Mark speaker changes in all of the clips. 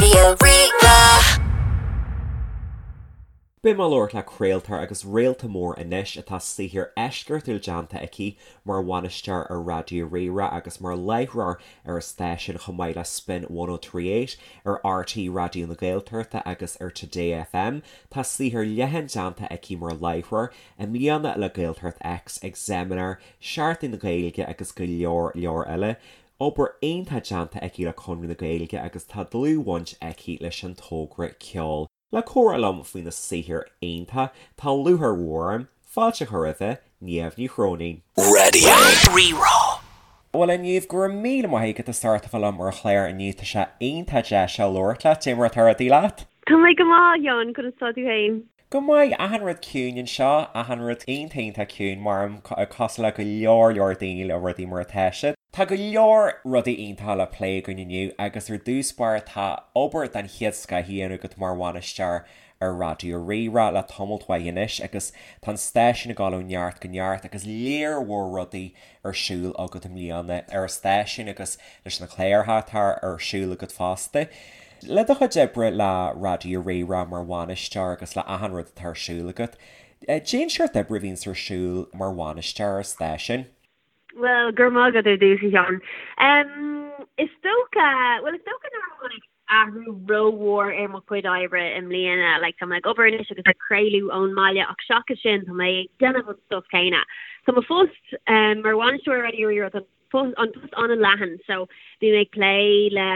Speaker 1: Raidió Rí-Rá.
Speaker 2: Beidh mé ag labhairt le craoltóir agus réalta mór anois atá saothar eisceachtúil déanta aici mar bhainisteoir ar Raidió Rí-Rá agus mar láithreoir ar an stáisiún chomh maith le Spin 1038 ar RTÉ Raidió na Gaeltachta agus ar Today FM. Tá saothar leathan déanta aici mar láithreoir, i mbliana le Gaeltacht X ag Seimineár Seachtain na Gaeilge agus go leor leor eile. Obair iontach déanta aici le Conradh na Gaeilge agus tá dlúthbhaint aici leis an togra ceoil. Le comhrá liom faoina saothar iontach, tá lúcháir mhór orm fáilte a chur roimhe, Niamh Ní Chróinín.
Speaker 1: Raidió Rí-Rá.
Speaker 2: Bhuel a Niamh, go raibh míle maith agat as ucht a bheith liom ar an chlár inniu, tá sé iontach deas labhairt leat, cad é mar atá rudaí leat?
Speaker 3: Tá mé go maith, a Sheáin, conas tá tú féin?
Speaker 2: Go maith, achan rud ciúin anseo, achan rud iontach iontach ciúin mar cosúil le go leor leor daoine le rudaí mar atá siad. Tá go leor rudaí iontacha le plé againn inniu agus ar dtús báire tá obair den chéad scoth á dhéanamh agat mar bhainisteoir ar Raidió Rí-Rá le tamalt mhaith anois agus tá an stáisiún ag dul ó neart go neart agus léar mhór rudaí ar siúl agat i mbliana ar an stáisiún agus leis na cláracha atá ar siúl agat fosta. Le do chuid oibre le Raidió Rí-Rá mar bhainisteoir agus le achan rud atá ar siúl agat, cén seort oibre a bhíonns ar siúl mar bhainisteoir ar stáisiún?
Speaker 3: Bhuel, go raibh maith agat ar dtús, a Sheáin. Is dócha, bhuel, is dócha nár tháinig athrú rómhór ar mo chuid oibre i mbliana. Like, tá mé ag obair anois agus ag craoladh ón mbaile ach seachas sin tá mé ag déanamh an stuff céanna. Tá mo phost mar bhainisteoir ar Raidió Rí-Rá, tá an post an-leathan so bím ag plé le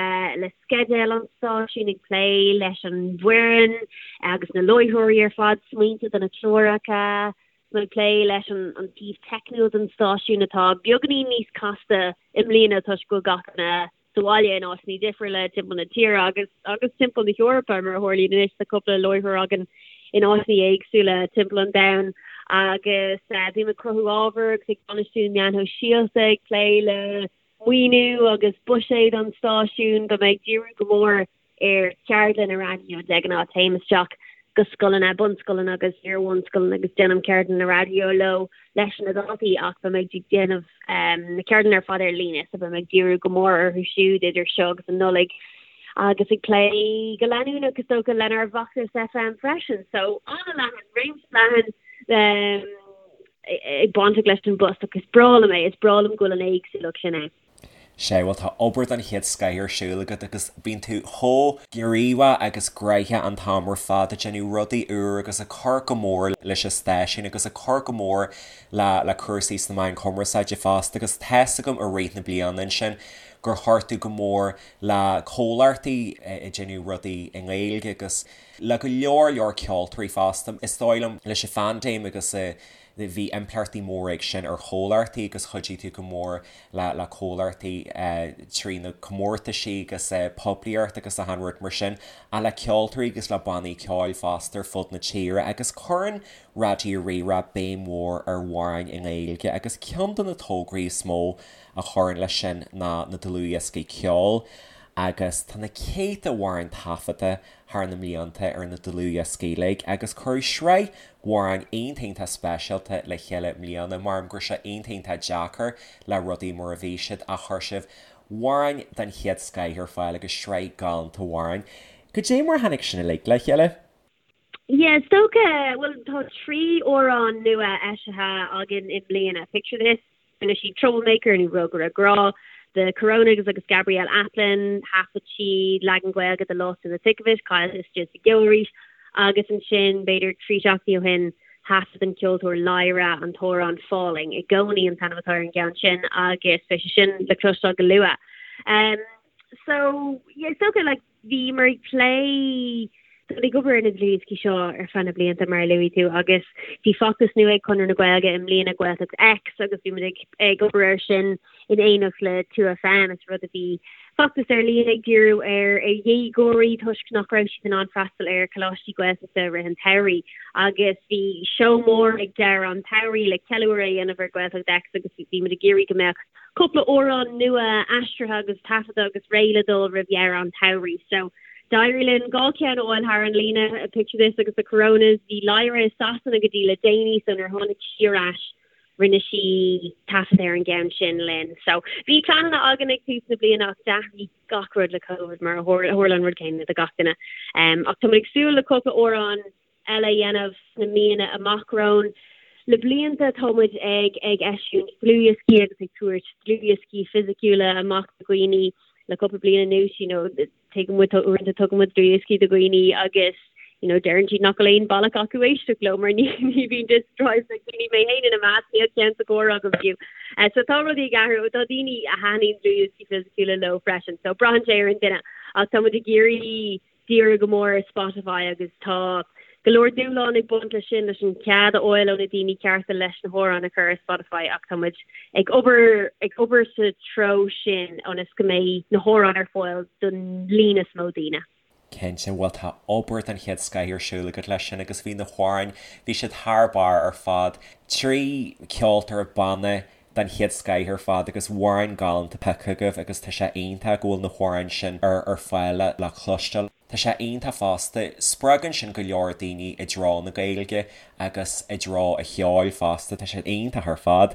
Speaker 3: le sceideal an stáisiúin, ag plé leis an bhfoireann agus na láithreoirí ar fad, smaointe do na cláracha, tá mé ag plé leis an an taobh teicniúil den stáisiún atá beagáinín níos casta i mbliana toisc go bhfuil gach duine sa bhaile in áiteanna difriúla timpeall na tíre agus agus timpeall na hEorpa mar a tharlaíonn anois. Tá cúpla láithreoir againn in áiteanna éagsúla timpeall an domhain agus bím ag cruthú ábhair agus ag bainistiú meáin shóisialta, ag plé le maoiniú agus buiséad an stáisiúin. Beidh mé ag díriú go mór ar cheardlanna raidió de ghnáth. Téim isteach go scoileanna, bunscoileanna agus iar-bhunscoileanna agus déanaim ceardlanna raidió leo leis na daltaí ach beidh mé ag déanamh na ceardlanna ar fad ar líne so beidh mé ag díriú go mór orthu siúd idir seo agus an Nollaig agus ag plé go leanúnach is dócha lenár bhfeachtas FM freisin. So an-leathan, réimse leathan ag baint leis an bpost ach is breá liom é, is breá liom go bhfuil an éagsúlacht sin ann.
Speaker 2: Sea, bhuel tá obair den chéad scoith ar siúl agat agus bíonn tú chomh gníomhach agus gnoitheach an t-am ar fad ag déanamh rudaí úr agus ag cur go mór leis an stáisiún agus ag cur go mór le le cúrsaí sna meáin chumarsáide fosta agus tá's agam i rith na bliana ansin gur chuir tú go mór le comhlachtaí ag déanamh rudaí i nGaeilge agus le go leor leor ceoltóirí fosta. Is dóigh liom leis an phaindéim agus Bhí impleachtaí móra ag sin ar chomhlachtaí agus chuidigh tú go mór le le comhlachtaí trí na comórtaisí agus poiblíocht agus achan rud mar sin, ach le ceoltóirí agus le bannaí ceoil fosta ar fud na tíre agus cuireann Raidió Rí-Rá béim mhór ar amhráin i nGaeilge agus ceann de na tograí is mó a chuireann leis sin ná na dlúthdhioscaí ceoil agus tá na céadta amhrán taifeadta thar na mblianta ar na dlúthdhioscaí uilig agus cuireadh sraith amhráin iontach iontach speisialta le chéile i mbliana. Maram go raibh sé iontach iontach deacair le rudaí mar a bhí siad ach chuir sibh amhráin den chéad scoith ar fáil agus sraith galánta amhráin. Cad é mar a tháinig sin uilig le chéile?
Speaker 3: Yeah, is dócha, bhuel tá 3 amhrán nua eisithe againn i mbliana, Picture This, Rinne siad Troublemaker nó Rógaire Grá, The Coronas agus Gabrielle Aplin, thaifead siad leagan Gaeilge de Lost in the Thick of It, Caillte Istigh sa gCeo Arís, agus ansin b'fhéidir 3 seachtainí ó shin thaifead an ceoltóir Lyra an t-amhrán Falling i gcónaí an t-ainm atá ar an gceann sin agus beidh sé sin le cloisteáil go luath. Um, so, yeah, is dócha, like, Bhíomar ag plé ag obair ar na dlúthdhioscaí seo ar feadh na blianta, mar a luaigh tú, agus bhí feachtas nua ag Conradh na Gaeilge i mbliana, Gaeltacht X, agus bhí muid ag ag obair air sin in éineacht le 2FM. Is rud a bhí feachtas ar líne ag díriú ar ar dhéagóirí toisc nach raibh siad in ann freastal ar choláistí Gaeltachta i rith an tsamhraidh. Agus bhí seó mór ag deireadh an tsamhraidh le ceiliúradh a dhéanamh ar Gaeltacht X agus bhí muid ag iarraidh go mbeadh cúpla amhrán nua aistrithe agus taifeadta agus réidh le dul roimh dheireadh an tsamhraidh. So, d'éirigh linn 2 cheann a fháil thar an líne, Picture This agus The Coronas. Bhí Lyra i Sasana go dtí le déanaí so nuair a tháinig sí ar ais, Rinne sí taifead ar an gceann sin linn. So bhí pleananna againn ag tús na bliana ach d'athraigh gach rud le Covid mar a tharla an rud céanna do gach duine. Ach tá muid ag súil le cúpla amhrán eile a dhéanamh sna míonna amach romhainn. Le blianta tá muid ag ag eisiúint dlúthdhioscaí agus ag tabhairt dlúthdhioscaí fisiciúla amach do dhaoine le cúpla bliain anuas, you know, tuigeann muid uaireanta tugann muid dlúthdhioscaí do dhaoine agus you know, deireann siad nach bhfuil aon bealach acu éisteacht leo mar ní ní bhíonn disk drives ag daoine mé féin ina measc níl ceann sa gcarr agam fiú. Uh, so tá rudaí ag athrú tá daoine a thaitníonn dlúthdhioscaí fisiciúla leo freisin, so braitheann sé ar an duine ach tá muid ag iarraidh díriú go mór ar Spotify agus tá go leor dúshlán ag baint leis sin, leis an cead a fháil ó na daoine cearta leis na hamhráin a chur ar Spotify ach tá muid ag obair ag obair sa treo sin ionas go mbeidh na hamhráin ar fáil don líon is mó daoine.
Speaker 2: Cinnte, bhuel tá obair den chéad scoith ar siúl agat leis sin agus bhí na hamhráin, bhí siad thar barr ar fad. 3 ceoltóir banna den chéad scoith ar fad agus amhráin galánta pioctha agaibh agus tá sé iontach go bhfuil na hamhráin sin ar ar fáil le le cloisteáil. Tá sé iontach fosta, spreagann sin go leor daoine i dtreo na Gaeilge agus i dtreo an cheoil fosta, tá sé iontach ar fad.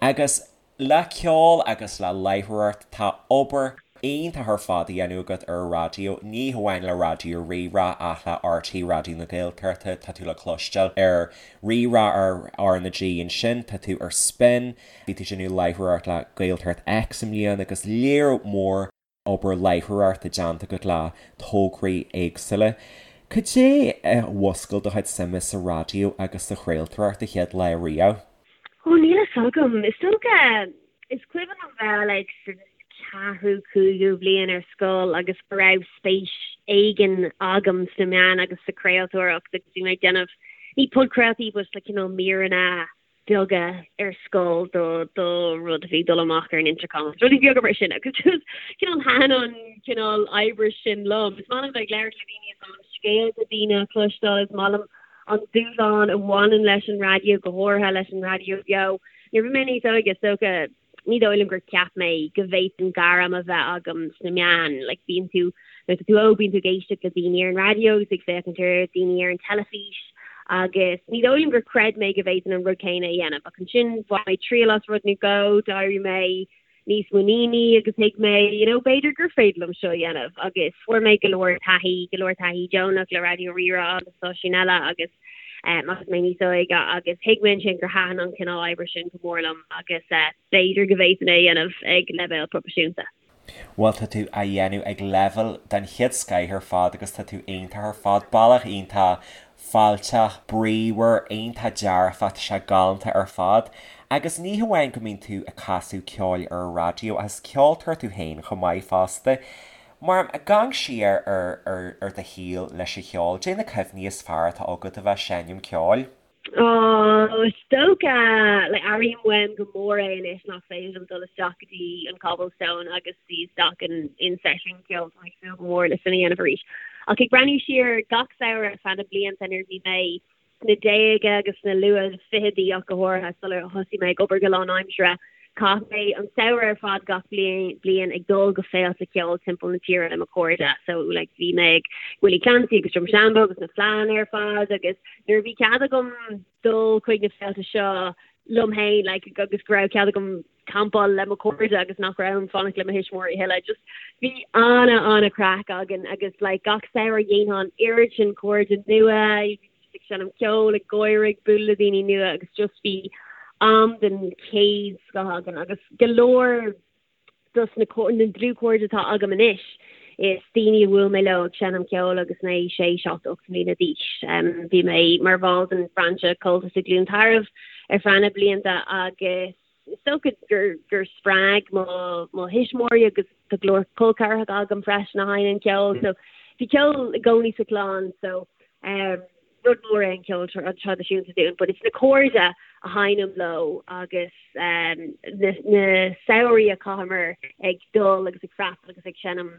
Speaker 2: Agus le ceol agus le láithreoireacht tá obair iontach ar fad á dhéanamh agat ar an raidió, ní hamháin le Raidió Rí-Rá ach le RTÉ Raidió na Gaeltachta, tá tú le cloisteáil ar Rí-Rá ar R na G ansin, tá tú ar Spin, bhí tú ag déanamh láithreoireacht le Gaeltacht X i mbliana agus lear mór obair láithreoireachta déanta agat le tograí éagsúla. Cad é a mhúscail do chuid suime sa raidió agus sa chraoltóireacht an chéad lá riamh?
Speaker 3: Ó, níl a fhios agam. Is dócha, is cuimhin liom bheith like sa ceathrú, cúigiú bliain ar scoil agus go raibh spéis éigin agam sna meáin agus sa chraoltóireacht agus bhí mé ag déanamh, ní podchraoltaí but like cineál míreanna beaga ar scoil do do rud a bhí ag dul amach ar an intercom agus rudaí beaga mar sin agus just cineál thaitin an cineál oibre sin liom. Is maith liom bheith ag labhairt le daoine, is maith liom scéalta daoine a chloisteáil, is maith liom an dúshlán a bhaineann leis an raidió, go háirithe leis an raidió beo. Nuair a bhí mé níos óige, is dócha, ní dóigh liom gur cheap mé go bhféadfainn gairm a bheith agam sna meáin. Like, bíonn tú, nuair atá tú óg, bíonn tú ag éisteacht le daoine ar an raidió agus ag féachaint ar daoine ar an teilifís agus ní dóigh liom gur chreid mé go bhféadfainn an rud céanna a dhéanamh. Ach ansin, bhain mé triail as rud nó dhó, d'éirigh mé níos muiníní agus thuig mé, you know, b'fhéidir gur féidir liom seo a dhéanamh agus fuair mé go leor taithí, go leor taithí deonach le Raidió Rí-Rá agus stáisiúin eile agus um, agus mé níos óige agus thuig mé ansin gur thaitin an cineál oibre sin go mór liom agus uh, b'fhéidir go bhféadfainn é a dhéanamh ag leibhéal proifisiúnta.
Speaker 2: Bhuel tá tú á dhéanamh ag leibhéal den chéad scoith ar fad agus tá tú iontach ar fad. Bealach iontach fáilteach, bríomhar, iontach dearfach, tá sé galánta ar fad. Agus ní hamháin go mbíonn tú ag casadh ceoil ar an raidió ach is ceoltóir tú féin chomh maith fosta. Mar ag amharc siar ar ar ar do shaol leis an cheol, cad é na cuimhní is fearr atá agat a bheith ag seinm ceoil?
Speaker 3: Ó, is dócha, like, airím uaim go mór é anois nach féidir liom dul isteach go dtí an Cobblestone agus suí isteach in, in seisiún ceoil, tá mé ag súil go mór le sin a dhéanamh arís. Ach ag breathnú siar gach samhradh ar feadh na blianta nuair a bhí mé sna déaga agus sna luath fichidí ach go háirithe sular thosaigh mé ag obair go lánaimseartha, Chaith mé an samhradh ar fad gach bliain ag dul go féilte ceoil timpeall na tíre le mo chairde. So like bhí mé ag Willie Clancy agus Drumshanbo agus na fleadhanna ar fad agus nuair a bhí cead agam dul chuig na féilte seo liom féin like agus go raibh cead agam campáil le mo chairde agus nach raibh orm fanacht le mo thuismitheoirí a thuilleadh just bhí ana ana craic againn agus like gach samhradh dhéanfá an oiread sin cairde nua ag seinm ceoil, ag gáire, ag bualadh le daoine nua agus just bhí am den chéad scoth againn agus go leor dos na na dlúthchairde atá agam anois is daoine a bhuail mé leo ag seinm ceoil agus mé sé, 7, 8 mbliana d'aois. Bhí mé mar bhall den bhrainse Comhaltas i gCluain Tarbh ar feadh na blianta agus Is dócha gur gur spreag mo mo thuismitheoirí agus tá go leor col ceathracha agam freisin a sheinneann ceol so bhí ceol i gcónaí sa chlann so um, rud mór é an ceol traidisiúnta dúinn, but it's na cairde a sheinnim leo agus um, na, na samhraí a chaitheamar ag dul agus ag freastal agus ag seinm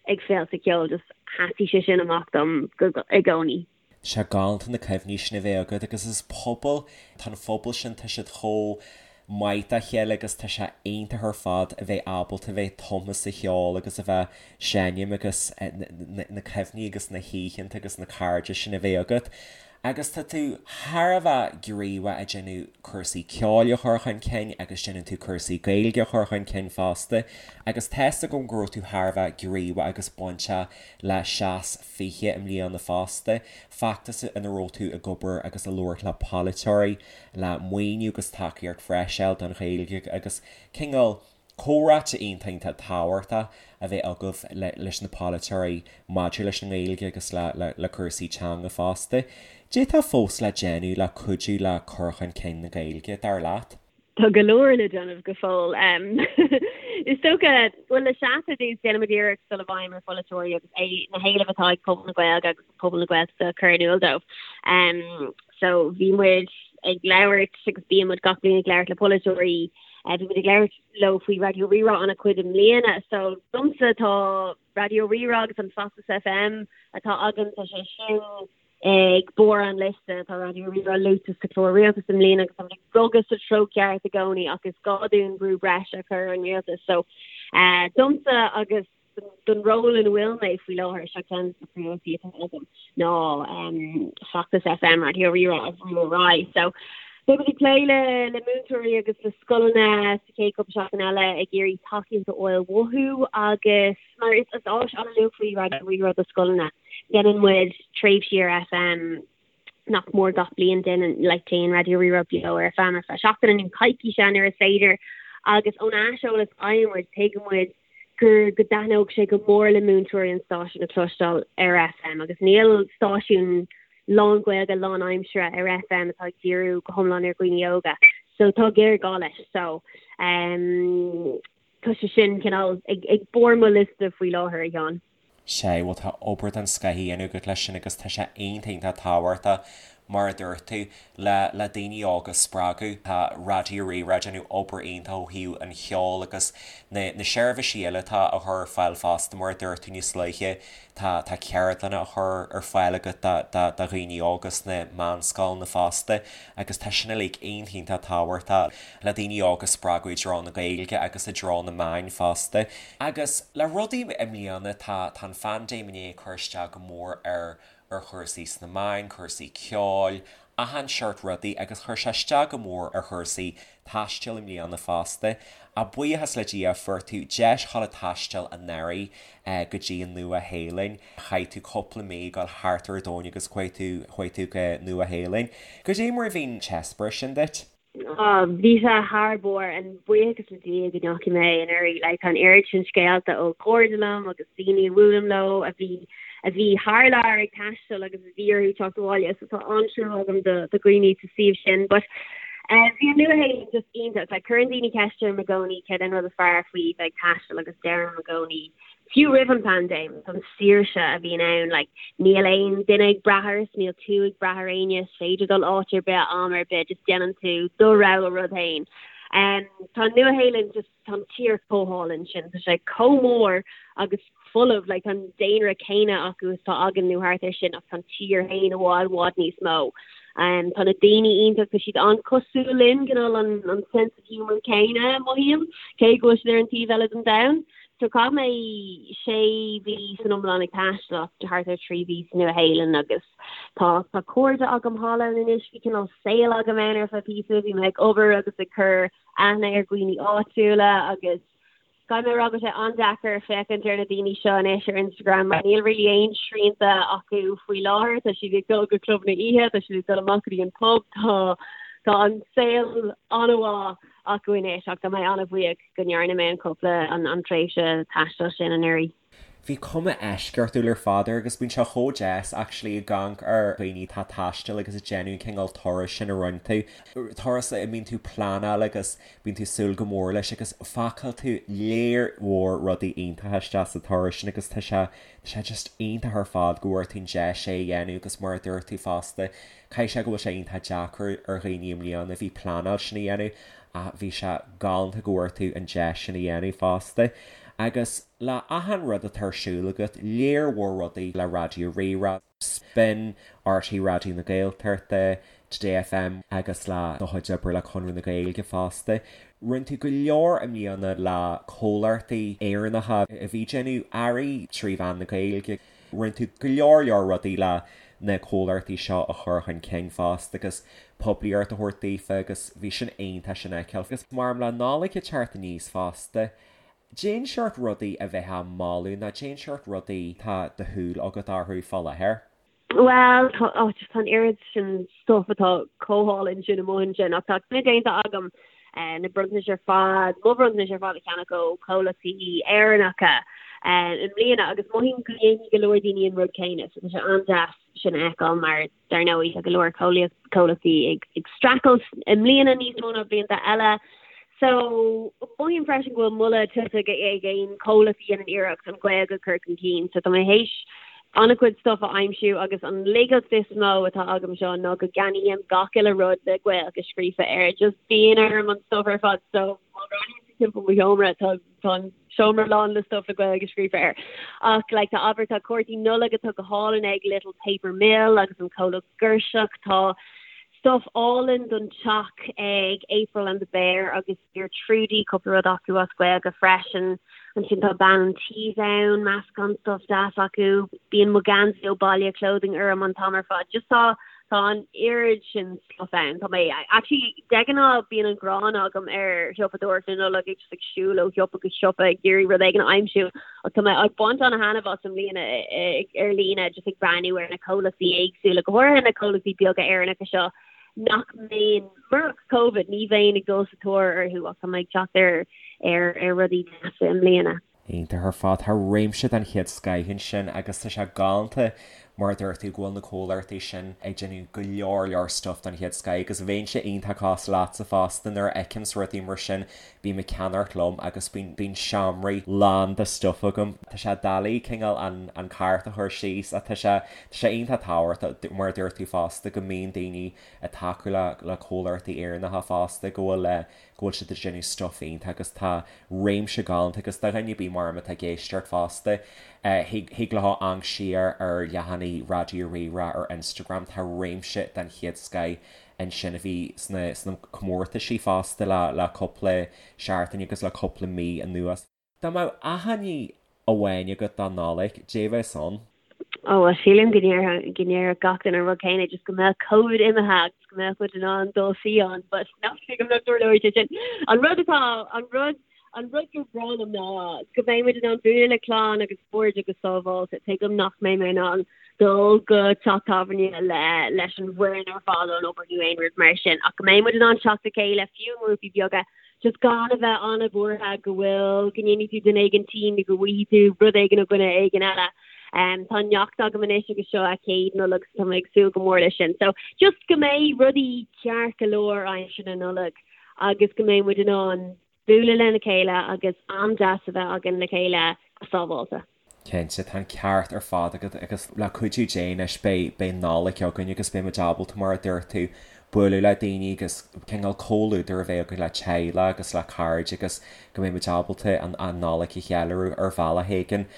Speaker 3: ag féilte ceoil just sheasfaidh sé sin amach dom go, i gcónaí.
Speaker 2: Tá sé galánta na cuimhní sin a bheith agat agus is pobal, tá an phobal sin, tá siad chomh maith dá chéile agus tá sé iontach ar fad a bheith ábalta a bheith tumtha sa cheol agus a bheith seinm agus na cuimhní agus na hoícheanta agus na cairde sin a bheith agat. Agus tá tú thar a bheith gníomhach ag déanamh cúrsaí ceoil a chur chun cinn agus déanann tú cúrsaí Gaeilge a chur chun cinn fosta agus tá's agam go raibh tú thar a bheith gníomhach agus bainteach le Seas 20 i mbliana fosta, feachtas ina raibh tú ag obair agus ag labhairt le polaiteoirí le maoiniú agus tacaíocht bhreise a fháil don Ghaeilge agus cineál comhráite iontach iontach tábhachtach a bheith agaibh leis na polaiteoirí maidir leis an nGaeilge agus le cúrsaí teanga fosta. Cad é atá fós le déanamh le cuidiú le cur chun cinn na Gaeilge, dar leat?
Speaker 3: Tá go leor le déanamh go fóill. Is dócha, bhuel, le Seas ar dtús, déanaimid iarracht dul i bhfeidhm ar pholaiteoirí agus na héilimh atá ag pobal na Gaeilge agus pobal na Gaeltachta a chur in iúl dóibh. So bhí muid ag labhairt agus bíonn muid gach bliain ag labhairt le polaiteoirí Bhí muid ag labhairt leo faoi Raidió Rí-Rá an-chuid i mbliana. So domsa tá Raidió Rí-Rá agus an feachtas FM atá againn, tá sé sin ag barr an liosta. Tá Raidió Rí-Rá luaite sa chlár rialtais i mbliana agus táimid ag bogadh sa treo ceart i gcónaí ach is gá dúinn brú breise a chur ar an rialtas. So domsa agus don ról ina bhfuil mé faoi láthair, seo ceann de na príomhrudaí atá agam ná feachtas FM Raidió Rí-Rá a bhrú ar aghaidh. So, beidh muid ag plé le le múinteoirí agus le scoileanna sa chéad cúpla seachtain eile ag iarraidh tacaíocht a fháil uathu agus mar is is áis an-luachmhar í Raidió Rí-Rá do scoileanna. Déanann muid tréimhsí ar FM nach mór gach bliain déanann like téann Raidió Rí-Rá beo ar FM ar feadh seachtaine nó coicíse nuair is féidir agus ón aiseolas a fhaigheann muid tuigeann muid gur go dtaitneodh sé go mór le múinteoirí an stáisiún a chloisteáil ar FM agus níl stáisiún lán-Ghaeilge lán-aimsire ar FM atá ag díriú go hiomlán ar dhaoine óga so tá géarghá leis so um, tá sé sin cineál ag, ag barr mo liosta faoi láthair a Sheáin.
Speaker 2: Sea, bhuel tá obair den scoth á dhéanamh agat leis sin agus tá sé iontach iontach tábhachtach, mar a dúirt tú, le le daoine óga a spreagadh. Tá Raidió Rí-Rá ag déanamh obair iontach ó thaobh an cheoil agus na na seirbhísí eile atá á chur ar fáil fosta, mar a dúirt tú níos luaithe, tá tá ceardlanna á chur ar fáil agat do do do dhaoine óga sna meánscoileanna fosta agus tá sin uilig iontach iontach tábhachtach le daoine óga a spreagadh i dtreo na Gaeilge agus i dtreo na meáin fosta. Agus le rudaí i mbliana, tá tá an phaindéim i ndiaidh cur isteach go mór ar ar chúrsaí sna meáin, cúrsaí ceoil, achan seort rudaí agus chuir sé isteach go mór ar chúrsaí taistil i mbliana fosta. Ach buíochas le Dia fuair tú deis dhul ag taisteal anuraidh go dtí an Nua Shéalainn. Chaith tú cúpla mí ag dul thart ar an domhan agus chuaigh tú chuaigh tú go Nua Shéalainn. Goidé mar a bhí an t-eispéireas sin duit?
Speaker 3: Oh, bhí sé thar barr, and buíochas le Dia go ndeachaigh mé anuraidh. Like, tá an oiread sin scéalta ó chairde liom agus daoine a bhuailim leo a bhí a bhí thar lear ag taisteal agus a bhí orthu teacht abhaile, so tá an-trua agam do do dhaoine sa suíomh sin. But eh, bhí an Nua-Shéalainn just iontach. Like, cuireann daoine ceist orm i gcónaí céard é an rud is fearr faoi bheith ag taisteal agus deirim i gcónaí Fiú roimh an bpaindéim, an saoirse a bhíonn ann, like, níl aon duine ag brath ort, níl tú ag brath ar éinne, is féidir dul áit ar bith, am ar bith, just déanann tú do rogha rud féin. Um, tá an Nua-Shéalainn just, tá an tír chomh hálainn sin, tá sé chomh mór agus folamh, like, tá an daonra céanna acu is atá againn nó thart ar sin ach tá an tír féin i bhfad, bhfad níos mó. Um, tá na daoine iontach, tá siad an-cosúil linn, cineál an, an sense of humour céanna, mothaím, cé go bhfuil siad ar an taobh eile den domhan. So chaith mé sé mhí san iomlán ag taisteal ach thart ar 3 mhí sa Nua-Shéalainn agus tá tá cairde agam thall ann anois, bhí cineál saol agam ann ar feadh píosa, bhí mé ag obair agus ag cur aithne ar dhaoine áitiúla agus caithfidh mé a rá go bhfuil sé an-deacair féachaint ar na daoine seo anois ar Instagram mar níl really aon srianta acu faoi láthair, tá siad ag dul go clubanna oíche, tá siad ag dul amach go dtí an pub, tá tá an saol an-mhaith acu anois ach tá mé an-bhuíoch go ndearna mé an cúpla, an tréimhse taistil sin anuraidh.
Speaker 2: Bhí cuma eisceachtúil ar fad air agus bíonn sé chomh deas actually ag amharc ar dhaoine atá ag taisteal agus ag déanamh an cineál turais sin a rinne tú. Turas a mbíonn tú ag pleanáil agus bíonn tú ag súil go mór leis agus phacáil tú léar mhór rudaí iontacha isteach sa turas sin agus tá sé, tá sé just iontach ar fad go bhfuair tú an deis é a dhéanamh agus mar a dúirt tú fosta, caithfidh sé go bhfuil sé iontach deacair ar dhaoine i mbliana a bhí pleanáil sin a dhéanamh Ach bhí sé galánta go bhfuair tú an deis sin a dhéanamh fosta. Agus le achan rud atá ar siúl agat, léar mhór rudaí le Raidió Rí-Rá, Spin, RTÉ Raidió na Gaeltachta, Today FM agus le do chuid oibre le Conradh na Gaeilge fosta. Rinne tú go leor i mbliana le comhlachtaí Éireannacha a bhí ag déanamh earraí trí mheán na Gaeilge. Rinne tú go leor leor rudaí le. na comhlachtaí seo a chur chun cinn fosta agus poiblíocht a thabhairt daofa agus bhí sin iontach sin a fheiceáil. Agus mar le Nollaig ag teacht aníos fosta, cén seort rudaí a bheifeá ag moladh nó cén seort rudaí tá do shúil agat orthu fá láthair?
Speaker 3: Bhuel, tá, oh, just tá an oiread sin stuff atá chomh hálainn sin amuigh ansin ach tá cinneadh déanta agam eh, na bronntanais ar fad, mo bhronntanais ar fad a cheannach ó chomhlachtaí Éireannacha eh, i mbliana agus mothaím go ndéanfaidh go leor daoine an rud céanna so tá sé an-deas sin a fheiceáil mar Dar ndóigh, tá go leor comhlachtaí ag streachailt i mbliana níos mó ná blianta eile. So, mothaím freisin go bhfuil moladh tuillte ag aon chomhlacht a dhéanann iarracht an Ghaeilge a chur chun cinn. So, tá mé théis an-chuid stuff a aimsiú agus an laigeacht is mó atá agam seo ná go gceannaím gach uile rud le Gaeilge scríofa air. Just bíonn orm an stuff ar fad. So, má bhreathnaíonn tú timpeall mo sheomra, tá Tá an seomra lán le stuff le Gaeilge scríofa air. Ach like tá abair tá cártaí Nollag atá go hálainn ag Little Paper Mill agus an comhlacht Girseach. Tá stuff álainn don teach ag April and the Bear agus Dear Trudy, cúpla rud acu as Gaeilge freisin. Ansin tá Bean an Tí ann, meascán stuff deas acu. Bíonn mo gheansaí ó Baile Clothing orm an t-am ar fad. Just tá Tá an oiread sin stuff ann. Tá mé, actually, de ghnáth bíonn an ghráin agam ar shiopadóireacht na Nollag, ag just ag siúl ó shiopa go siopa ag iarraidh rud éigin a aimsiú, ach tá mé ag baint an-thaitneamh as i mbliana ar líne, just ag breathnú ar na comhlachtaí éagsúla, go háirithe na comhlachtaí beaga Éireannacha seo nach mbeinn, murach Covid, ní bheinn ag dul sa tóir orthu ach tá mé ag teacht ar ar rudaí deasa i mbliana.
Speaker 2: Iontach ar fad. Tá réimse den chéad scoith ansin agus tá sé galánta mar a dúirt tú go bhfuil na comhlachtaí sin ag déanamh go leor leor stuff den chéad scoith agus bheinnse iontach cosúil leatsa fosta nuair a fheicimse rudaí mar sin bím ag ceannacht liom agus bíonn bíonn seomraí lán de stuff agam. Tá sé doiligh cineál an an cárta a chur síos ach tá sé tá sé iontach tábhachtach mar a dúirt tú fosta go mbíonn daoine ag tacú le le comhlachtaí Éireannacha fosta go bhfuil go bhfuil siad ag déanamh stuff iontach agus tá réimse galánta agus do dhuine ar bith mar atá ag éisteacht fosta, thig leo amharc siar ar leathanaigh Raidió Rí-Rá ar Instagram, tá réimse den chéad scoith ansin a bhí sna sna comórtaisí fosta le le cúpla seachtain agus le cúpla mí anuas. Dá mbeadh achainí amháin agat don Nollaig, cad é a bheas ann?
Speaker 3: Ó, bhuel, sílim go ndéarfadh, go ndéarfadh gach duine an rud céanna, just go mbeadh Covid imithe agus go mbeadh muid in ann dul fiáin, but nach tuigim nach dtarlóidh sé sin. An rud atá, an rud, an rud gur bhreá liom ná go mbeidh muid in ann bualadh le clann agus cairde go sábháilte. Tuigim nach mbeidh mé in ann dul go teach tábhairne le, leis an bhfoireann ar fad ón obair nó aon rud mar sin, ach go mbeidh muid in ann teacht le chéile, fiú i ngrúpaí beaga, just gan a bheith an-bhuartha go bhfuil, go ndéanfaidh tú duine éigin tinn nó go bhfaighidh tú rud éigin ó dhuine éigin eile. Tá neacht agam anois agus seo a céad Nollaig so tá mé ag súil go mór leis sin. So just go mbeidh rudaí ceart go leor aimsir na Nollag agus go mbeidh muid in ann bualadh lena chéile agus am deas a bheith againn le chéile go sábháilte.
Speaker 2: Cinnte, tá an ceart ar fad agat agus le cuidiú Dé anois beidh, beidh Nollaig againn agus beidh muid ábalta, mar a dúirt tú, bualadh le daoine agus cineál comhluadar a bheith againn le teaghlach agus le cairde agus go mbeidh muid ábalta an, an Nollaig a cheiliúradh ar bhealach éigin.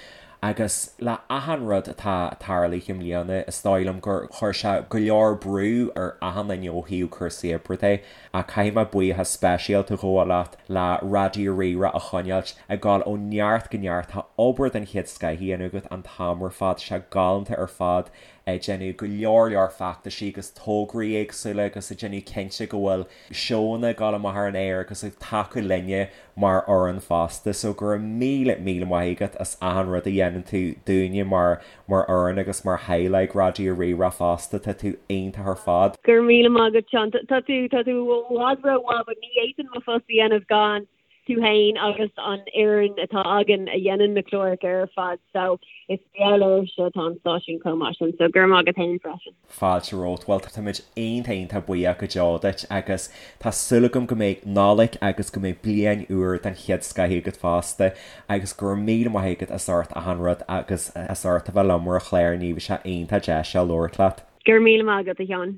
Speaker 2: Agus le achan rud atá tarlaithe i mbliana, is dóigh liom gur chuir sé go leor brú ar achan duine ó thaobh cúrsaí oibre de. Ach caithfidh mé buíochas speisialta a ghabháil leat le Raidió Rí-Rá a choinneáilt ag gabháil ó neart go neart. Tá obair den chéad scoith á dhéanamh agat an t-am ar fad. Tá sé galánta ar fad ag déanamh go leor leor feachtaisí agus tograí éagsúla agus ag déanamh cinnte go bhfuil seónna ag gabháil amach ar an aer agus ag tacú linne mar fhoireann fosta. So go raibh míle míle maith agat as achan rud a dhéanann tú dúinne mar mar fhoireann agus mar theaghlach Raidió Rí-Rá fosta. Tá tú iontach ar fad.
Speaker 3: Go raibh míle maith agat Seán. Tá tú tá tú i bhfad rómhaith but ní fhéadfainn mo phost a dhéanamh gan tú féin agus an fhoireann atá againn a dhéanann na cláracha ar fad so is mar gheall oraibhse atá an stáisiún chomh maith sin so go raibh maith agat féin freisin.
Speaker 2: Fáilte romhat. Bhuel, táimid iontach iontach buíoch go deo duit agus tá súil agam go mbeidh Nollaig agus go mbeidh bliain úr den chéad scoith agat fosta agus go raibh míle maith agat as ucht achan rud agus as ucht a bheith liom ar an chlár inniu, bhí sé iontach deas labhairt leat.
Speaker 3: Go raibh míle maith agat, a Sheáin.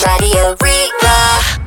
Speaker 1: Raidió Rí-Rá.